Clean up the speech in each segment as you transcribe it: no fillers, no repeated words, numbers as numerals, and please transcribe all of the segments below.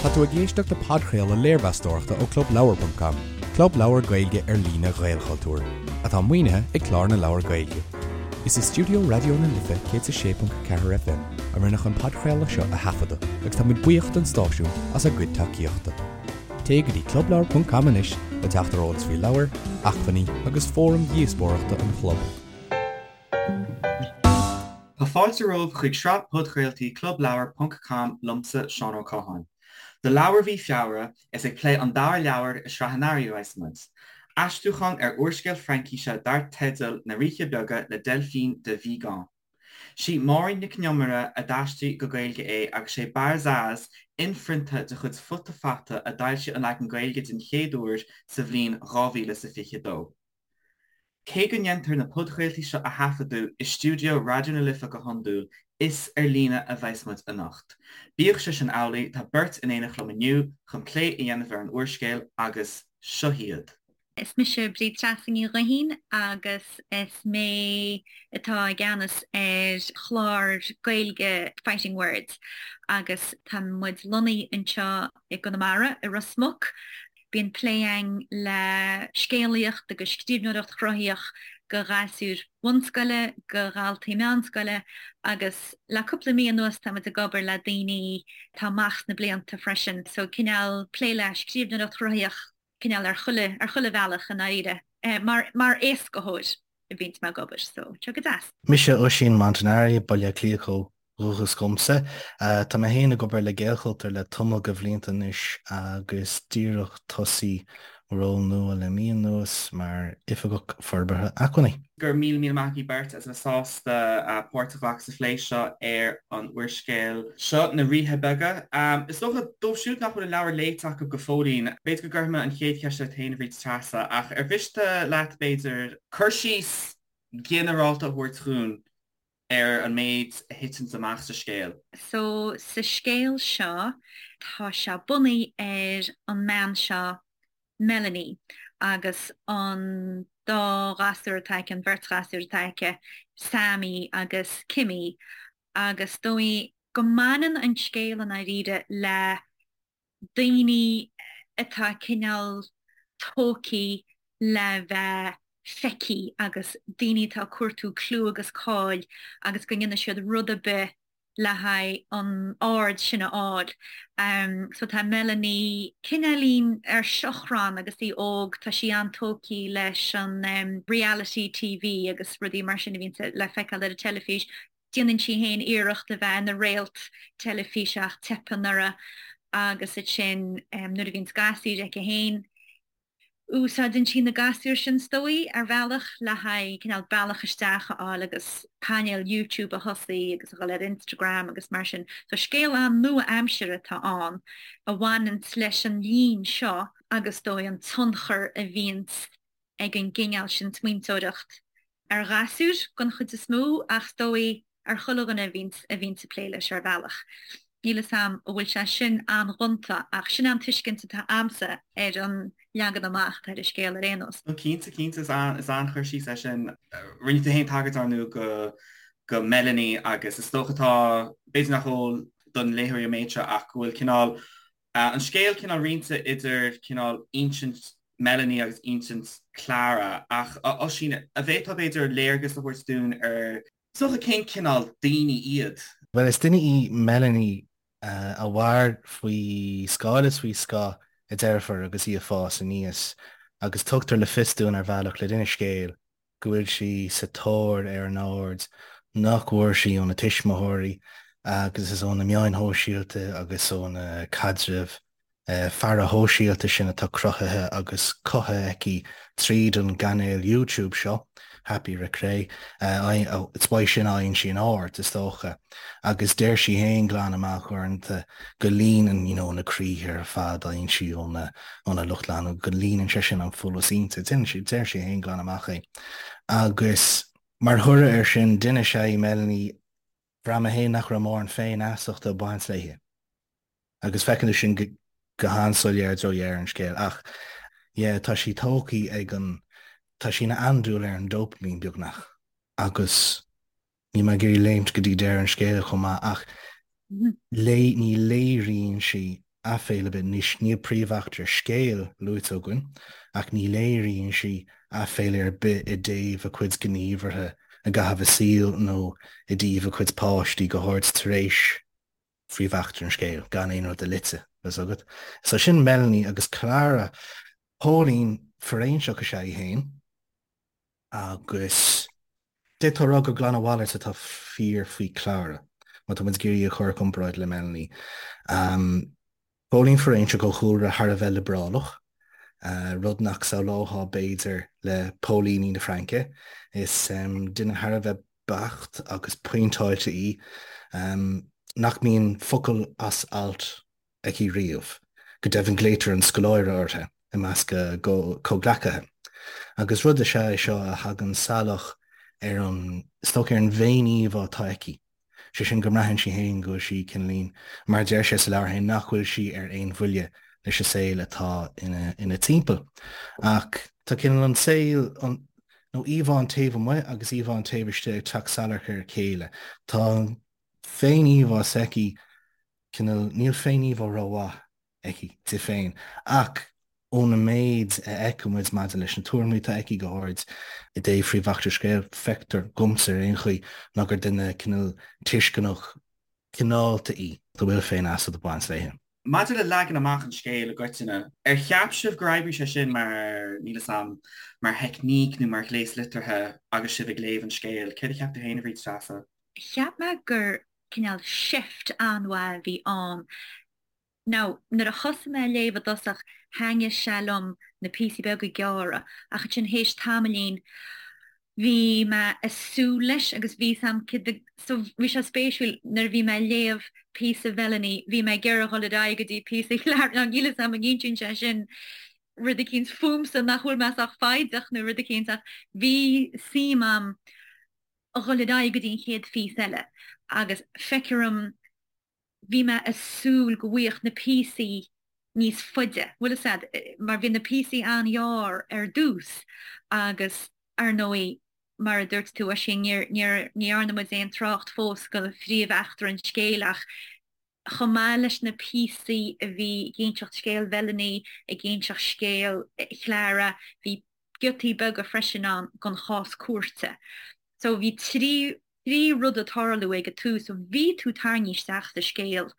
Tá tú ag éisteacht le podchraoladh léirmheastóireachta ó ClubLeabhar.com, club leabhar Gaeilge ar líne Ghaelchultúir, atá maoinithe ag Clár na Leabhar Gaeilge. Is i stiúideo Raidió na Life 106.4 FM a rinneadh an podchraoladh seo a thaifeadadh agus tá muid buíoch don stáisiún as a gcuid tacaíochta. Téigh go dtí clubleabhar.com anois le teacht ar eolas faoi leabhair, acmhainní agus fóraim dhíospóireachta an chlub. Tá fáilte romhaibh chuig sraith podchraoltaí Clubleabhar ponc com liomsa, Seán Ó Catháin. Do leabhar mhí Feabhra, is ag plé an dara leabhar i sraith an earraigh a bheas muid. Aistriúchán ar úrscéal Fraincíse dar teideal Na Ríthe Beaga le Delphine de Vigan. Sí Máirín Nic an Iomaire a d'aistrigh go Gaeilge é agus sé Barzaz, inphrionta de chuid Futa Fata a d'fhoilsigh an leagan Gaeilge den chéad uair sa bhliain 2022. Cé go ndéantar na podchraoltaí seo a thaifeadadh i stiúideo Raidió na Life go hiondúil, is ar líne a bheas muid anocht. Bíodh sé sin amhlaidh, tá beirt in éineacht liom inniu chun plé a dhéanamh ar an úrscéal agus seo hiad. Is mise Bríd Treasa Ní Ghuithín agus is mé atá i gceannas ar chlár Gaeilge Fighting Words agus tá muid lonnaithe anseo i gConamara, i Ros Muc. Bíonn plé againn le scéalaíocht agus scríbhneoireacht chruthaitheach do ghasúir bhunscoile, do dhaltaí meánscoile agus le cúpla mí anuas tá muid ag obair le daoine atá amach sna blianta freisin. So cineál plé le scríbhneoireacht chruthaitheach cineál ar chuile, ar chuile bhealach i ndáiríre. Mar, mar éascaitheoir a bhíonns mé ag obair so tá go deas. Mise Oisín Montanari, Baile Átha Cliath ó dhúchas dhomsa. Tá mé féin ag obair le Gaelchultúr le tamall de bhlianta anois agus díreach tosaí ról nua le mí anuas mar Oifigeach Forbartha Acmhainní. Go raibh míle míle maith agaibh beirt as a bheith sásta páirt a ghlacadh sa phlé seo ar an úrscéal seo, Na Ríthe Beaga. Is dócha, dóibh siúd nach bhfuil an leabhar léite acu go fóillín, b'fhéidir go gcuirfidh mé an chéad cheist ort féin, a Bhríd Treasa, ach ar mhiste leat, b'fhéidir, cur síos ginearálta a thabhairt dhúinn ar an méid a thiteanns amach sa scéal. So, sa scéal seo, tá sé bunaithe ar an mbean seo, Melanie, agus an dá ghasúr atá aici, an bheirt ghasúr atá aici, Sammy agus Kimmy, agus is dóigh go mbaineann an scéal i ndáiríre le daoine atá cineál tógtha le bheith feicthe agus daoine atá ag cuartú clú agus cáil agus go ndéanfaidh siad rud ar bith le haghaidh an aird sin a fháil. So tá Melanie cineáilín ar seachrán agus í óg, tá sí an-tógtha leis an reality TV agus rudaí mar sin a bhíonn le feiceáil ar an teilifís. Déanann sí féin iarracht a bheith ina réalt teilifíse ach teipeann uirthi agus ansin nuair a bhíonns gasúir aici féin, úsáideann sí na gasúir sin is dóigh ar bhealach le haghaidh cineál bealach isteach a fháil agus cainéal YouTube a thosaí agus a dhul ar Instagram agus mar sin. So scéal an-nua-aimseartha atá ann a bhaineanns leis an líon seo agus is dóigh an tionchar a bhíonns ag an gcineál sin smaointeoireacht ar ghasúir den chuid is mó ach is dóigh ar chuile dhuine a bhíonns a bhíonns ag plé leis ar bhealach. Níl 'fhios a'm an bhfuil sé sin an-ghonta ach sin an tuiscint atá a'msa ar an leagan amach atá ar an scéal ar aon nós. No cinnte, cinnte, is an-chur síos é sin. Rinne tú féin tagairt ar ndóigh go go Melanie agus is dócha tá, b'fhéidir nach eol don léitheoir an méid seo ach go bhfuil cineál An scéal cineál roinnte idir cineál insint Melanie agus insint Clara, ach a Oisín, an bhféadfá b'fhéidir léargas a thabhairt dúinn ar, is dócha, cén cineál daoine iad? Bhuel, is duine í Melanie a mhair faoi scáil is faoi scáth a deirfiúr agus í ag fás aníos, agus tugtar le fios dúinn ar bhealach le linn an scéil go bhfuil sí sa tóir ar an aird nach bhfuair sí óna tuismitheoirí agus is ó na meáin shóisialta agus ó na caidrimh faire shóisialta sin atá cruthaithe agus cothaithe aici tríd an gcainéal YouTube seo, Happy Recre, is uaidh sin a fhaigheann sí an aird, is dócha. Agus deir sí féin glan amach uaireanta go líonann you know na croíthe ar fad a fhaigheann sí óna óna lucht leanúna, go líonann sé sin an folús inti. Déanann sí, deir sí féin glan amach é. Agus mar thoradh air sin, duine is ea í Melanie, bhraith mé féin nach raibh mórán féinfheasachta ag baint léi. Agus feiceann tú sin go go han-soiléir i dtreo dheireadh an scéil. Ach yeah, tá sí tógtha ag an, tá sí ina andúil ar an dopamine beagnach. Agus Níl mé ag iarraidh léimt go dtí deireadh an scéil chomh maith ach ní léiríonn sí. aiféala ar bith. Anois, níl príomheachtra scéil luaite againn, ach ní léiríonn sí aiféala ar bith i dtaobh a cuid gníomhartha i gcaitheamh a saoil nó i dtaobh a cuid páistí, go háirid tar éis phríomheachtra an scéil, gan aon rud a loiteadh, tá 'fhios agat. So sin Melanie agus Clara. Póilín fóiréinseach is ea í féin agus d'fhéadfá a rá gur glan a mhalairt atá fíor faoi Clara, má tá muid ag iarraidh í a chur i gcomparáid le Melanie. Póilín fóiréinseach ó chúlra thar a bheith liobrálach, rud nach samhlófá b'fhéidir le póilíní na Fraince. Is duine thar a bheith beacht agus pointeáilte í, nach mbíonn focal as alt aici riamh. Go deimhin glaoitear an scoláire uirthi i measc a comhghleacaithe. Agus rud is ea é seo a thagann salach ar an, is dócha, ar an bhféin-íomhá atá aici. Sé sin go mbraitheann sí féin go bhfuil sí cineáilín, mar a deir sé sa leabhar féin, nach bhfuil sí ar aon bhuille leis an saol atá ina timpeall. Ach tá cineál an saol, an, nó íomhá an taobh amuigh agus íomhá an taobh istigh ag teacht salach ar a chéile. Tá an féin-íomhá s'aici cineál, níl féin-íomhá rómhaith aici di féin, ach ón méid a fheiceann muid maidir leis na tuairimí atá aici, go háirid i dtaobh phríomheachtra scéil, feictear dhomsa ar aon chaoi ná gur duine cineál tuisceanach cineálta í, a bhfuil féinfheasacht ag baint léi. Maidir le leagan amach an scéil i gcoitinne, ar cheap sibh gur oibrigh sé sin mar, níl 'fhios a'm, mar theicníc nó mar ghléas liteartha agus sibh ag léamh an scéil? Céard a cheap tú féin, a Bhríd Treasa? Cheap mé gur cineál seift an-mhaith a bhí ann. Now, nuair a thosaigh mé ag léamh i dtosach, thaitnigh sé liom na píosaí beaga gearra, ach ansin théis tamaillín, bhí mé ag súil leis agus bhí 'fhios a'm céard a, so bhí sé spéisiúil nuair a bhí mé ag léamh píosa Mhelanie, bhí mé ag iarraidh dhul ar aghaidh go dtí píosa Chlara, now níl 'fhios a'm an insíonn sé sin rud eicínt fúmsa nach bhfuil mé sách foighdeach nó rud eicínt ach bhí suim a'm a dhul ar aghaidh go dtí an chéad phíosa eile agus feictear dom bhí mé ag súil go bhfaigheadh na píosaí níos faide, bhfuil fhios a'd, mar bhí na píosaí an-ghearr ar dtús agus ar ndóigh mar a dúirt tú Oisín, níor, níor, ní dhearna muid aon trácht fós go phríomh-eachtra an scéil ach chomh maith leis na píosaí a bhí ag inseacht scéal Mhelanie, ag inseacht scéal Chlara, bhí giotaí beaga freisin ann den chás cúirte. So bhí trí trí rud ag tarlú ag an tús, so bhí tú tarraingthe isteach sa scéal.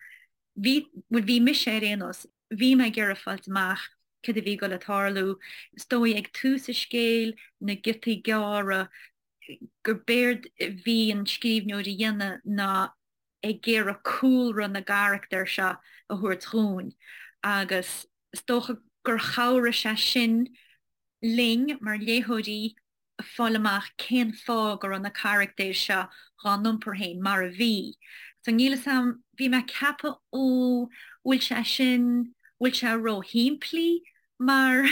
Bhí, bhuel bhí mise ar aon nós, bhí mé ag iarraidh fáilt amach cad a bhí ag dul ag tarlú. Is dóigh ag tús an scéil, na giotaí gearra, gur b'éard a bhí an scríbhneoir a dhéanamh ná ag iarraidh cúlra na gcarachtar seo a thabhairt dhúinn agus is dócha gur chabhraigh sé sin linn mar léitheoirí fáil amach cén fáth go raibh na carachtair seo dhá n-iompar féin mar a bhí. So níl 'fhios a'm, bhí mé ag ceapadh ó bhfuil sé sin, bhfuil sé ró-shimplí mar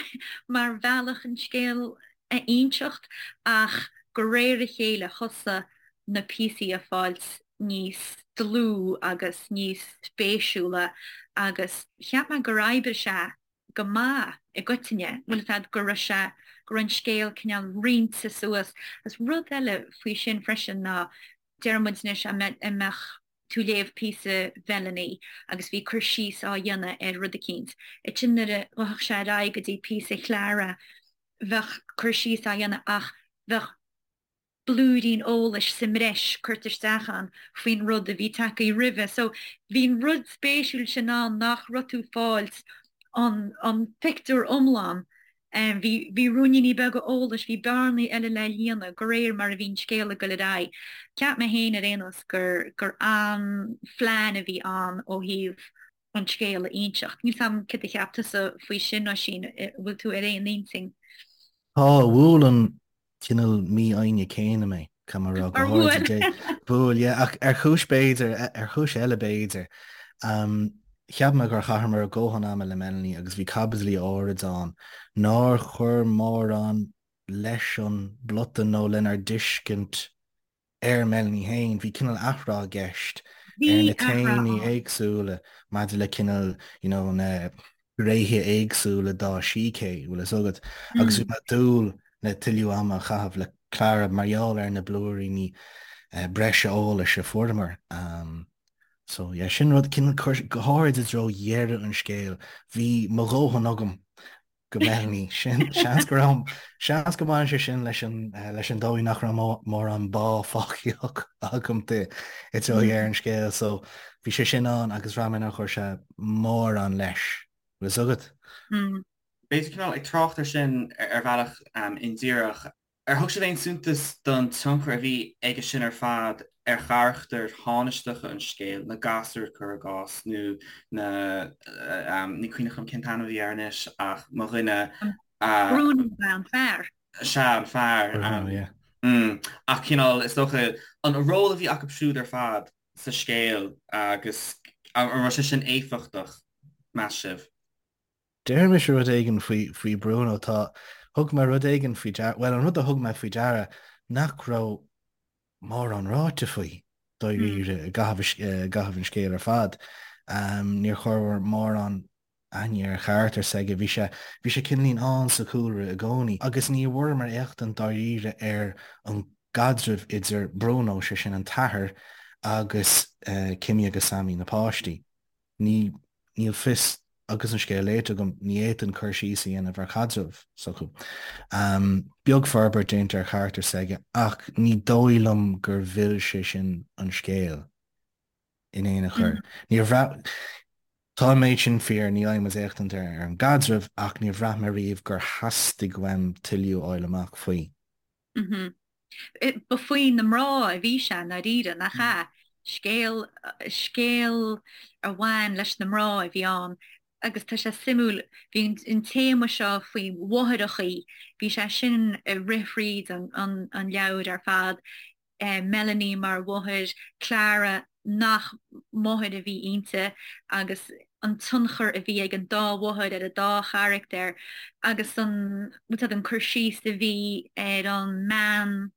mar bhealach an scéal a inseacht ach de réir a chéile thosaigh na píosaí a fáilt níos dlúth agus níos spéisiúla agus cheap mé gur oibrigh sé go maith i gcoitinne, bhfuil 'fhios a'd, go raibh sé, go raibh an scéal cineál roinnte suas. Agus rud eile faoi sin freisin ná, deir muid anois, an mbeadh tú ag léamh píosa Mhelanie agus bhí cur síos á dhéanamh ar rud eicínt. Ansin nuair a ghabhfadh sé ar aghaidh go dtí píosa Chlara, bheadh cur síos á dhéanamh ach bheadh blúirín eolais sa mbreis curtha isteach ann faoin rud a bhí tagtha roimhe. So bhí an rud spéisiúil sin ann nach raibh tú ag fáilt an an pictiúr iomlán. Bhí bhí ruainníní beaga eolais, bhí bearnaí eile le líonadh de réir mar a bhí an scéal ag dul ar aghaidh. Cheap mé féin ar aon nós gur gur an-phlean a bhí ann ó thaobh an scéal a inseacht. Níl 's a'm céard a cheap tusa faoi sin, Oisín, an bhfuil tú ar aon intinn? Tá, bhuail an cineál mífhoighne céanna mé, caithfidh mé a rá, go Ar háirid bhuail? Bhuail, yeah, ach ar chúis b'fhéidir, ar chúis eile b'fhéidir. Cheap mé gur chaitheamar ár ndóthain ama le Melanie agus bhí caibidlí áirid ann nár chuir mórán leis an bplota nó lenár dtuiscint ar Melanie féin. Bhí cineál athrá i gceist Bhí ar na athrá téamaí ann. éagsúla maidir le cineál you know na gnéithe éagsúla dá sícé, bhfuil fhios agat, agus bhí mé ag dúil le tuilleadh ama a chaitheamh le Clara mar gheall ar na blúiríní breise eolais a fuaireamar. So yeah, sin rud cineál cur go háirid i dtreo dheireadh an scéil, bhí mo dhóthain agam go Melanie. Sin, seans go raibh, seans go mbaineann sé sin leis an, leis an dóigh nach raibh mórán bá fágtha agam di i dtreo dheireadh an scéil. So bhí sé sin ann agus bhraith mé nár chuir sé mórán leis. Bhfuil fhios agat? B'fhéidir cineál ag trácht ar sin ar bhealach indíreach, Ar thug sibh aon suntas don tionchar a bhí aige sin ar fad ar charachtair thánaisteacha an scéil, na gasúir, cuir i gcás, nó na, ní cuimhneach liom cén t-ainm a bhí air anois ach mo dhuine a. Bruno ab ea an fear. Sea, an fear. Bruno, yeah. Ach cineál, is dócha, an ról a bhí acu siúd ar fad sa scéal agus an raibh sé sin éifeachtach, meas sibh? Déarfaidh mise rud éigin faoi, faoi Bruno. Tá, thug mé rud éigin faoi deara, bhuel, an rud a thug mé faoi deara nach raibh mórán ráite faoi, dáiríre, i gcaitheamh, i gcaitheamh an scéil ar fad. Níor chuireamar mórán aithne ar charachtar s'aige. Bhí sé, bhí sé cineáilín ann sa chúlra i gcónaí. Agus ní bhfuaireamar éachtaint dáiríre ar an gcaidreamh idir Bruno, sé sin an t-athair, agus Kimmy agus Sammy, na páistí. Ní, níl fios, agus an scéal léite agam, ní fhéadfainn cur síos a dhéanamh ar chaidreamh s'acu. Beag forbairt déanta ar charachtar s'aige ach ní dóigh liom gur mhill sé sin an scéal in aon chor. Níor bhraith, tá an méid sin fíor, ní fhaigheann muid éachtaint ar an gcaidreamh ach níor bhraith mé riamh gur theastaigh uaim tuilleadh a fháil amach faoi. Ba faoi na mná a bhí sé i ndáiríre, nach ea? Scéal, scéal a bhain leis na mná a bhí ann agus tá sé suimiúil, bhí an téama seo faoi mháithreachaí, bhí sé sin ag rith thríd an leabhar ar fad, Melanie mar mháthair, Clara nach máthair a bhí inti agus an tionchar a bhí ag an dá mháthair ar an dá charachtar agus an, bhfuil fhios a'd, an cur síos a bhí ar an mbean,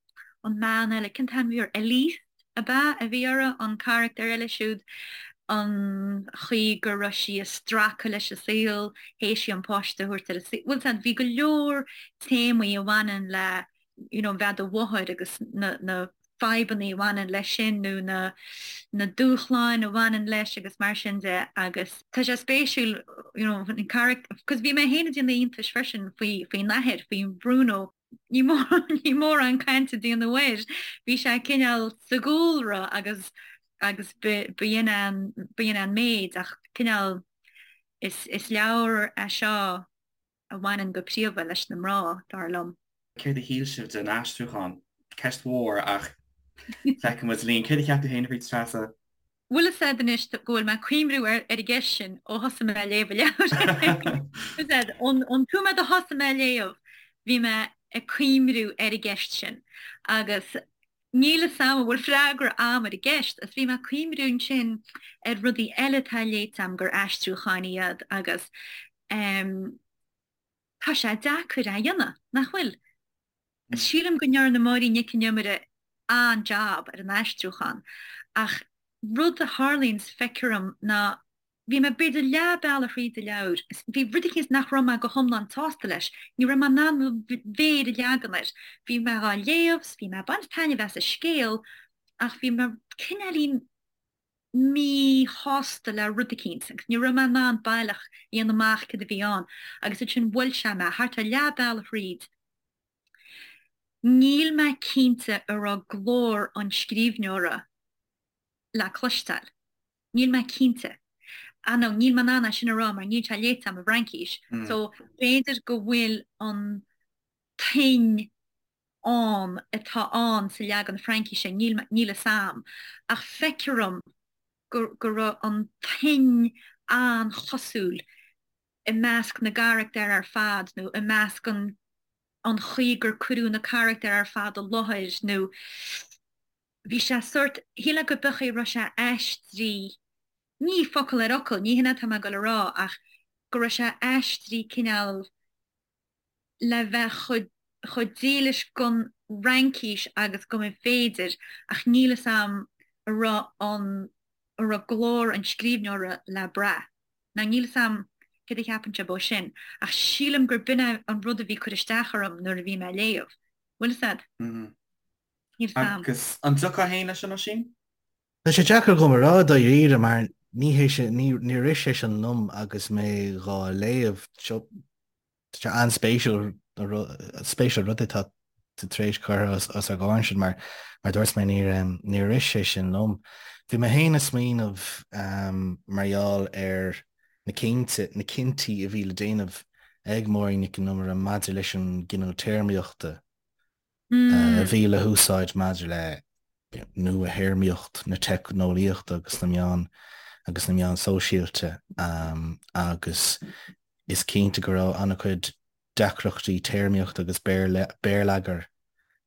an mbean eile, cén t-ainm a bhí uirthi, Elise ab ea a bhí uirthi, an carachtar eile siúd, an chaoi go raibh sí ag stracadh leis an saol, théis di an páiste a thabhairt ar an saol, bhfuil fhios a'd, bhí go leor téamaí a bhaineann le you know, bheith i do mháthair agus na, na fadhbanna a bhaineann leis sin nó na, na dúshláin a bhaineann leis agus mar sin de agus tá sé spéisiúil you know, an charachtar, cos bhí mé féin ag déanamh iontais freisin faoi, faoin athair, faoi Bruno, ní mór, ní mórán cainte a déanadh air, bhí sé cineál sa gcúlra agus, agus b'in an, b'in an méid ach cineál is, is leabhar é seo a bhaineann go príomha leis na mná, dar liom. Céard a shíl sibh den aistriúchán? Ceist mhór ach feicfidh muid linn. Céard a cheap tú féin a Bhríd Treasa? Bhfuil fhios a'd anois go bhfuil mé ag cuimriú ar an gceist sin ó thosaigh mé ag léamh an leabhair. Bhfuil fhios a'd, ón nóiméad a thosaigh mé ag léamh, bhí mé ag cuimriú ar an gceist sin agus níl fhios a'm an bhfuil freagra a'm ar an gceist agus bhí mé ag cuimriú ansin ar rudaí eile atá léite a'm gur aistriúcháin iad agus Tá sé deacair é a dhéanamh, nach bhfuil? Sílim go ndearna Máirín Nic an Iomaire an-jab ar an aistriúchán ach rud a tharlaíonn is feictear dom ná bhí mé b'fhéidir leath bealaigh thríd an leabhar is bhí rud eicínt nach raibh mé go hiomlán sásta leis, ní raibh mé in ann mo mhéar a leagan air. Bhí mé dhá léamh 's bhí mé ag baint taitneamh as an scéal ach bhí mé cineáilín míshásta le rud eicínt agus ní raibh mé in ann baileach a dhéanamh amach céard a bhí ann agus ansin bhuail sé mé thart ar leath bealaigh thríd. Níl mé cinnte an raibh glór an scríbhneora le cloisteáil. Níl mé cinnte. Ah no, níl mé in ann é sin a rá mar níl sé léite agam i bhFraincís so b'fhéidir go bhfuil an tuin ann atá ann sa leagan Fraincise, níl níl fhios a'm, ach feictear dom go go raibh an tuin an-chosúil i measc na gcarachtar ar fad nó i measc an an chaoi gur cuireadh na carachtair ar fad i láthair nó bhí sé sórt, shílfeá go b'é a raibh sé aistrithe, ní focal ar fhocal, ní hin atá mé ag dul a rá ach go raibh sé aistrithe cineál le bheith chomh dílis don Fhraincis agus go mba féidir, ach níl fhios a'm an raibh an an raibh glór an scríbhneora le brath. Now níl fhios a'm céard a cheapann sibh ó sin, ach sílim gur b'in é an rud a bhí ag cur isteach orm nuair a bhí mé ag léamh. Bhfuil fhios a'd? Níl fhios a'm. Agus an dtiocfá féin leis sin, Oisín? Tá sé deacair dhom a rá dáiríre mar ní hé sin, níor rith sé sin liom agus mé dhá léamh. Tá sé an-spéisiúil, spéisiúil rud atá tú tar éis cur os ár gcomhair ansin mar mar dúirt mé níor níor rith sé sin liom. Bhí mé féin ag smaoineamh mar gheall ar na cinnte, na cinntí a bhí le déanamh ag Máirín Nic an Iomaire maidir leis an gcineál téarmaíochta a bhí le húsáid maidir le nua-théarmaíocht na teicneolaíochta agus na meán agus na meán sóisialta agus is cinnte go raibh an-chuid deacrachtaí téarmaíochta agus béarlagair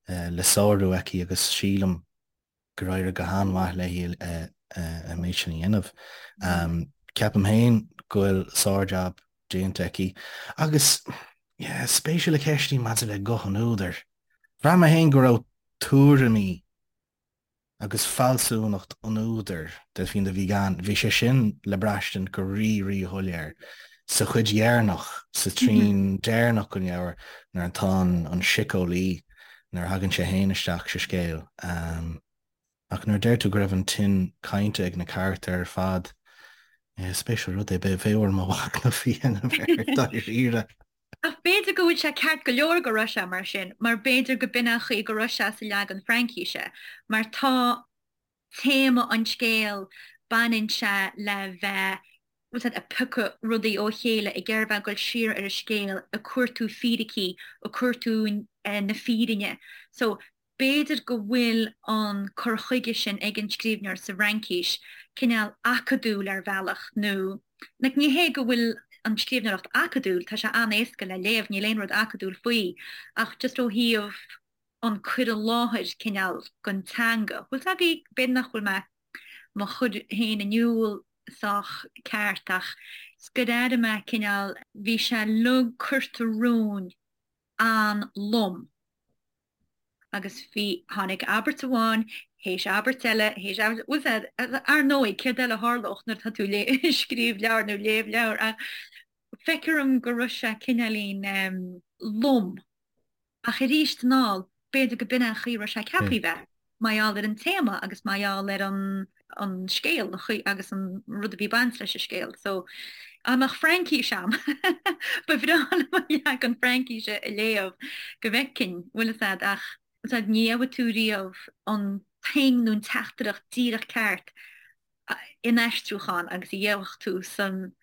le sárú aici agus sílim gur éirigh go han-mhaith léi an méid sin a dhéanamh. Ceapaim féin go bhfuil sár-jab déanta aici agus yeah, spéisiúil an cheist í maidir le guth an údair. Bhraith mé féin go raibh tuairimí agus fealsúnacht an údair, Delphine de Vigan, bhí sé sin le braistint go rí-rí-shoiléir sa chuid dheireanach, sa trian deireanach den leabhar nuair atá an síceolaí nuair a thagann sé féin isteach sa scéal. Ach nuair a deir tú go raibh an tuin cainte ag na carachtair ar fad, is spéisiúil rud é, bheadh orm mo mhachnamh a dhéanamh air dáiríre. Ach b'fhéidir go bhfuil sé ceart go leor go raibh sé mar sin, mar b'fhéidir go b'in an chaoi go raibh sé sa leagan Fraincíse, mar tá téama an scéil, baineann sé le bheith, bhfuil 's a'd, ag piocadh rudaí ó chéile, ag iarraidh bheith ag dul siar ar an scéal, ag cuartú fíricí, ag cuartú na fírinne. So, b'fhéidir go bhfuil an cur chuige sin ag an scríbhneoir sa bhFraincis cineál acadúil ar bhealach nó, like, ní hé go bhfuil an scríbhneoireacht acadúil, tá sé an-éasca le léamh, níl aon rud acadúil faoi, ach just ó thaobh an cur i láthair cineál den teanga. Bhfuil 's agaibh, b'fhéidir nach bhfuil mé mo chur féin in iúl sách ceart ach is gur airigh mé cineál, bhí sé uilig curtha romhainn an-lom agus bhí, tháinig abairt amháin théis abairt eile théis abairt, bhfuil 's a'd, ar ndóigh céard eile a tharlódh nuair atá tú ag scríobh leabhar nó léamh leabhar ach feictear dom go raibh sé cineáilín lom. Ach arís anall, b'fhéidir go b'in é an chaoi a raibh sé ceaptha a bheith, mar gheall ar an téama agus mar gheall ar an an scéal, an chaoi agus an rud a bhí ag baint leis an scéal. So, dá mbeadh Fraincís a'm, ba bhreá liom an leagan Fraincíse a léamh go bhfeicfinn, bhfuil fhios a'd, ach bhfuil 's a'd, ní gheobhaidh tú riamh an tuin nó an teachtaireacht díreach ceart in aistriúchán agus a gheobhadh tú san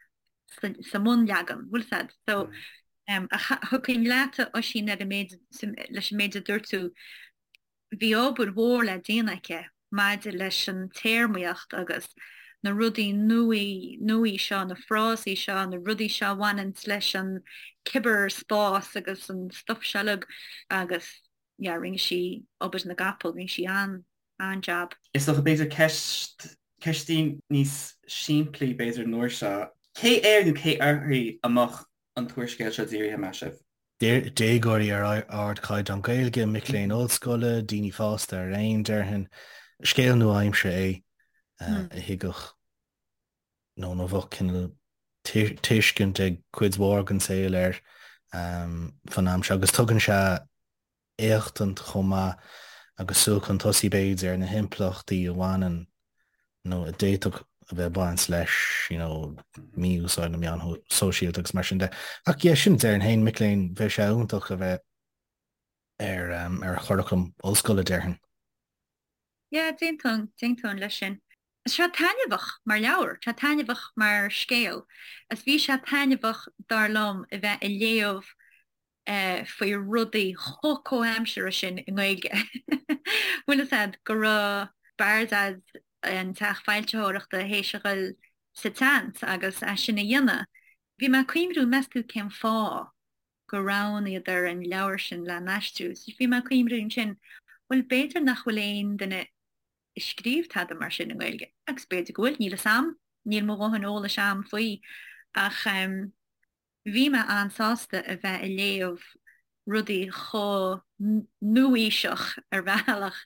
sa mbunleagan, bhfuil 's a'd. So, ach thiocfainn leat, a Oisín, ar an méid, leis an méid a dúirt tú, bhí obair mhór le déanamh aici maidir leis an téarmaíocht agus na rudaí nuaí, nuaí seo, na frásaí seo, na rudaí seo a bhaineanns leis an cibearspás agus an stuff seo uilig agus yeah, rinne sí obair na gcapall, rinne sí an, an-jab. Is dócha, b'fhéidir ceist, ceistín níos simplí b'fhéidir an uair seo. Cé air nó cé uirthi a mbeadh an t-úrscéal seo dírithe, meas sibh? Déagóirí ar ardchaighdeán Gaeilge, mic léinn ollscoile, daoine fásta araon, déarfainn. Scéal nua-aimseartha é a thuigfeadh nó a bheadh cineál tuiscint ag cuid mhór den saol air fan am seo agus tugann sé éachtaint chomh maith agus súil chun tosaigh b'fhéidir ar na himpleachtaí a bhaineann nó a d'fhéadfadh a bheith ag baint leis you know mí-úsáid na meán sóisialta agus mar sin de. Ach yeah, sin déarfainn féin, mic léinn, bheadh sé iontach a bheith ar ar churaclam ollscoile déarfainn. Yeah, d'aontóinn, d'aontóinn leis sin. Tá sé taitneamhach mar leabhar, tá taitneamhach mar scéal, is bhí sé taitneamhach dar liom a bheith ag léamh faoi rudaí chomh comhaimseartha sin i nGaeilge. Bhfuil fhios a'd go raibh Bardaz, an teach foilsitheoireachta, théis a dhul sa tseans agus é sin a dhéanamh. Bhí mé ag cuimhniú, meas tú cén fáth gur roghnaíodar an leabhar sin le n-aistriú? Bhí mé ag cuimhniú ansin, bhuel b'fhéidir nach bhfuil aon duine ag scríobh tada mar sin i nGaeilge, agus b'fhéidir go bhfuil, níl fhios a'm, níl mo dhóthain eolais a'm faoi, ach bhí mé an-sásta a bheith ag léamh rudaí chomh nua-aoiseach ar bhealach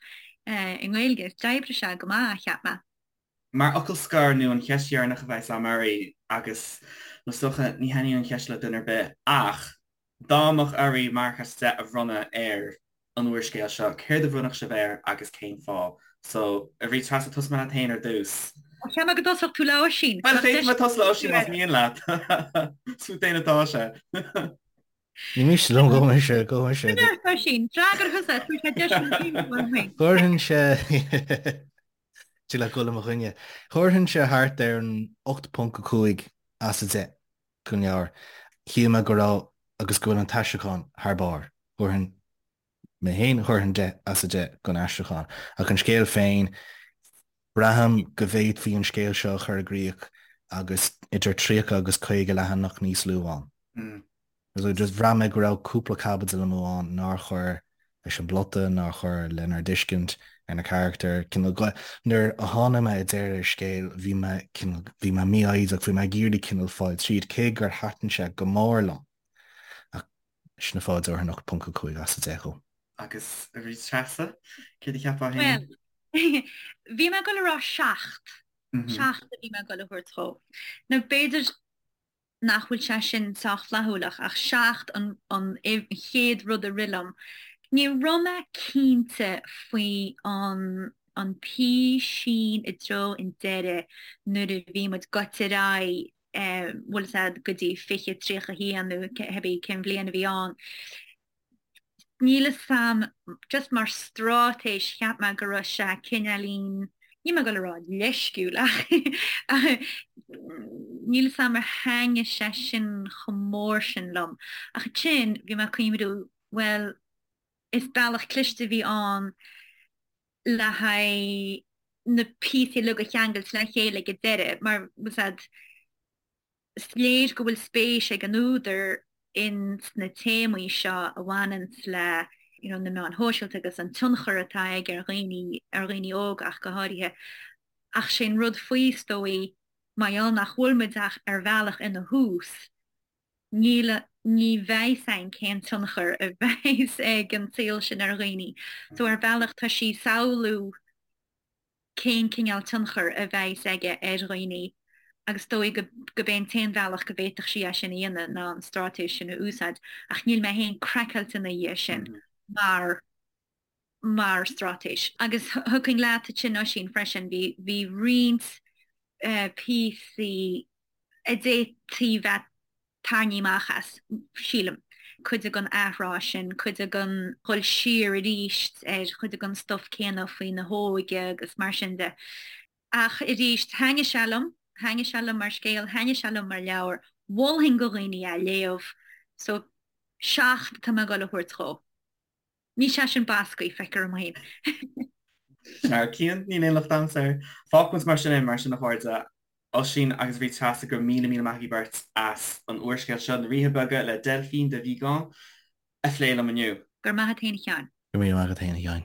i nGaeilge. D'oibrigh sé go maith, cheap mé. Mar fhocal scoir, nó an cheist dheireanach a bheas a'm oraibh, agus is dócha ní thaitníonn an cheist le duine ar bith, ach dá mbeadh oraibh marc as 10 a bhronnadh ar an úrscéal seo, céard a bhronnfadh sibh air agus cén fáth? So, a Bhríd Treasa, tosóidh mé leat féin ar dtús. Cheap mé go dtosódh tú le Oisín. Bhuel, féadfaidh mé tosú le Oisín más mian leat. Is fút féin atá sé. Ní miste liom, gabh mise, gabh mise. Sin ort, Oisín, freagair thusa, tabhair sé deis don team go bhfuil féin. Thabharfainnse, tig leat dul i mo choinne. Thabharfainnse thart ar an 8.5 as 10 don leabhar. Shíl mé go raibh agus go bhfuil an t-aistriúchán thar barr. Thabharfainn mé féin, thabharfainn 10 as 10 don aistriúchán. Ach an scéal féin, braithim go bhféadfaí an scéal seo a chur i gcrích agus idir 30 agus 50 leathanach níos lú ann. So just bhraith mé go raibh cúpla caibidil amú ann nár chuir leis an bplota, nár chuir lenár dtuiscint ar na carachtair. Cineál, nuair a tháinig mé i deireadh an scéil, bhí mé cineál, bhí mé mífhoighdeach, bhí mé ag iarraidh cineál fáil tríd, cé gur thaitin sé go mór liom. Ach sin an fáth a dtabharfainn 8.5 as 10 dhó. Agus a Bhríd Treasa, céard a cheapfá féin? Bhuel, bhí mé ag dul a rá 7. 7 a bhí mé ag dul a thabhairt dhó. Nó b'fhéidir nach bhfuil sé sin sách flaithiúil ach 7 an an chéad rud a rith liom. Ní raibh mé cinnte faoi an an písín i dtreo an deireadh nuair a bhí muid gaibhte ar aghaidh bhfuil fhios a'd go dtí 2031 nó cibé cén bhliain a bhí ann. Níl fhios a'm, just mar straitéis cheap mé go raibh sé cineáilín, níl mé ag dul a rá leisciúil ach níl fhios a'm ar thaitnigh sé sin chomh mór sin liom. Ach ansin bhí mé ag cuimhniú, bhuel, is bealach cliste a bhí ann le haghaidh na píosaí uilig a cheangailt le chéile ag an deireadh mar bhfuil fhios a'd, is léir go bhfuil spéis ag an údar in sna téamaí seo a bhaineanns le you know na meáin shóisialta agus an tionchar atá aige ar dhaoine, ar dhaoine óga ach go háirithe. Ach sé an rud faoi is dóigh, mar gheall nach bhfuil muid ach ar bhealach ina thús, níl, ní bheidh fhios a'inn cén tionchar a bheidhs ag an saol sin ar dhaoine. So ar bhealach tá sí ag samhlú cén cineál tionchar a bheidhs aige ar dhaoine agus is dóigh go b'é an t-aon bhealach go bhféadfadh sí é sin a dhéanamh ná an straitéis sin a úsáid ach níl mé féin craiceáilte ina dhiaidh sin mar mar straitéis. Agus thiocfainn leat ansin Oisín freisin, bhí bhí roinnt píosaí a d'fhéadfaí bheith tarraingthe amach as, sílim. Cuid den athrá sin, cuid den dhul siar arís ar chuid den stuif céanna faoina hóige agus mar sin de. Ach arís, thaitnigh sé liom, thaitnigh sé liom mar scéal, thaitnigh sé liom mar leabhar, mholfainn do dhaoine é a léamh. So, 7 atá mé ag dul a thabhairt dhó. Níl sé sin bascaí, feictear dom féin. Sea, Cian, níl aon locht a'msa air. Fágfaidh muid mar sin é, mar sin a chairde, Oisín agus Bríd Treasa, go raibh míle míle maith agaibh beirt as an úrscéal seo, Na Ríthe Beaga le Delphine de Vigan, a phlé liom inniu. Go raibh maith agat féin a Sheáin. Go raibh míle maith agat féin a Sheáin.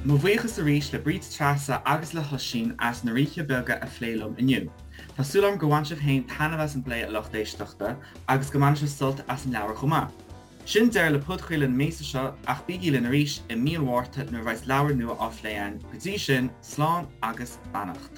Mo bhuíochas arís le Bríd Treasa agus le hOisín as Na Ríthe Beaga a phlé liom inniu. Tá súil agam gur bhain sibh féin taitneamh as an bplé a lucht éisteachta agus go mbainfidh sibh sult as an leabhar chomh maith. Sin deireadh le podchraoladh na míosa seo ach bígí linn arís i mí an Mhárta nuair a bheas leabhar nua á phlé againn. Go dtí sin, slán agus beannacht.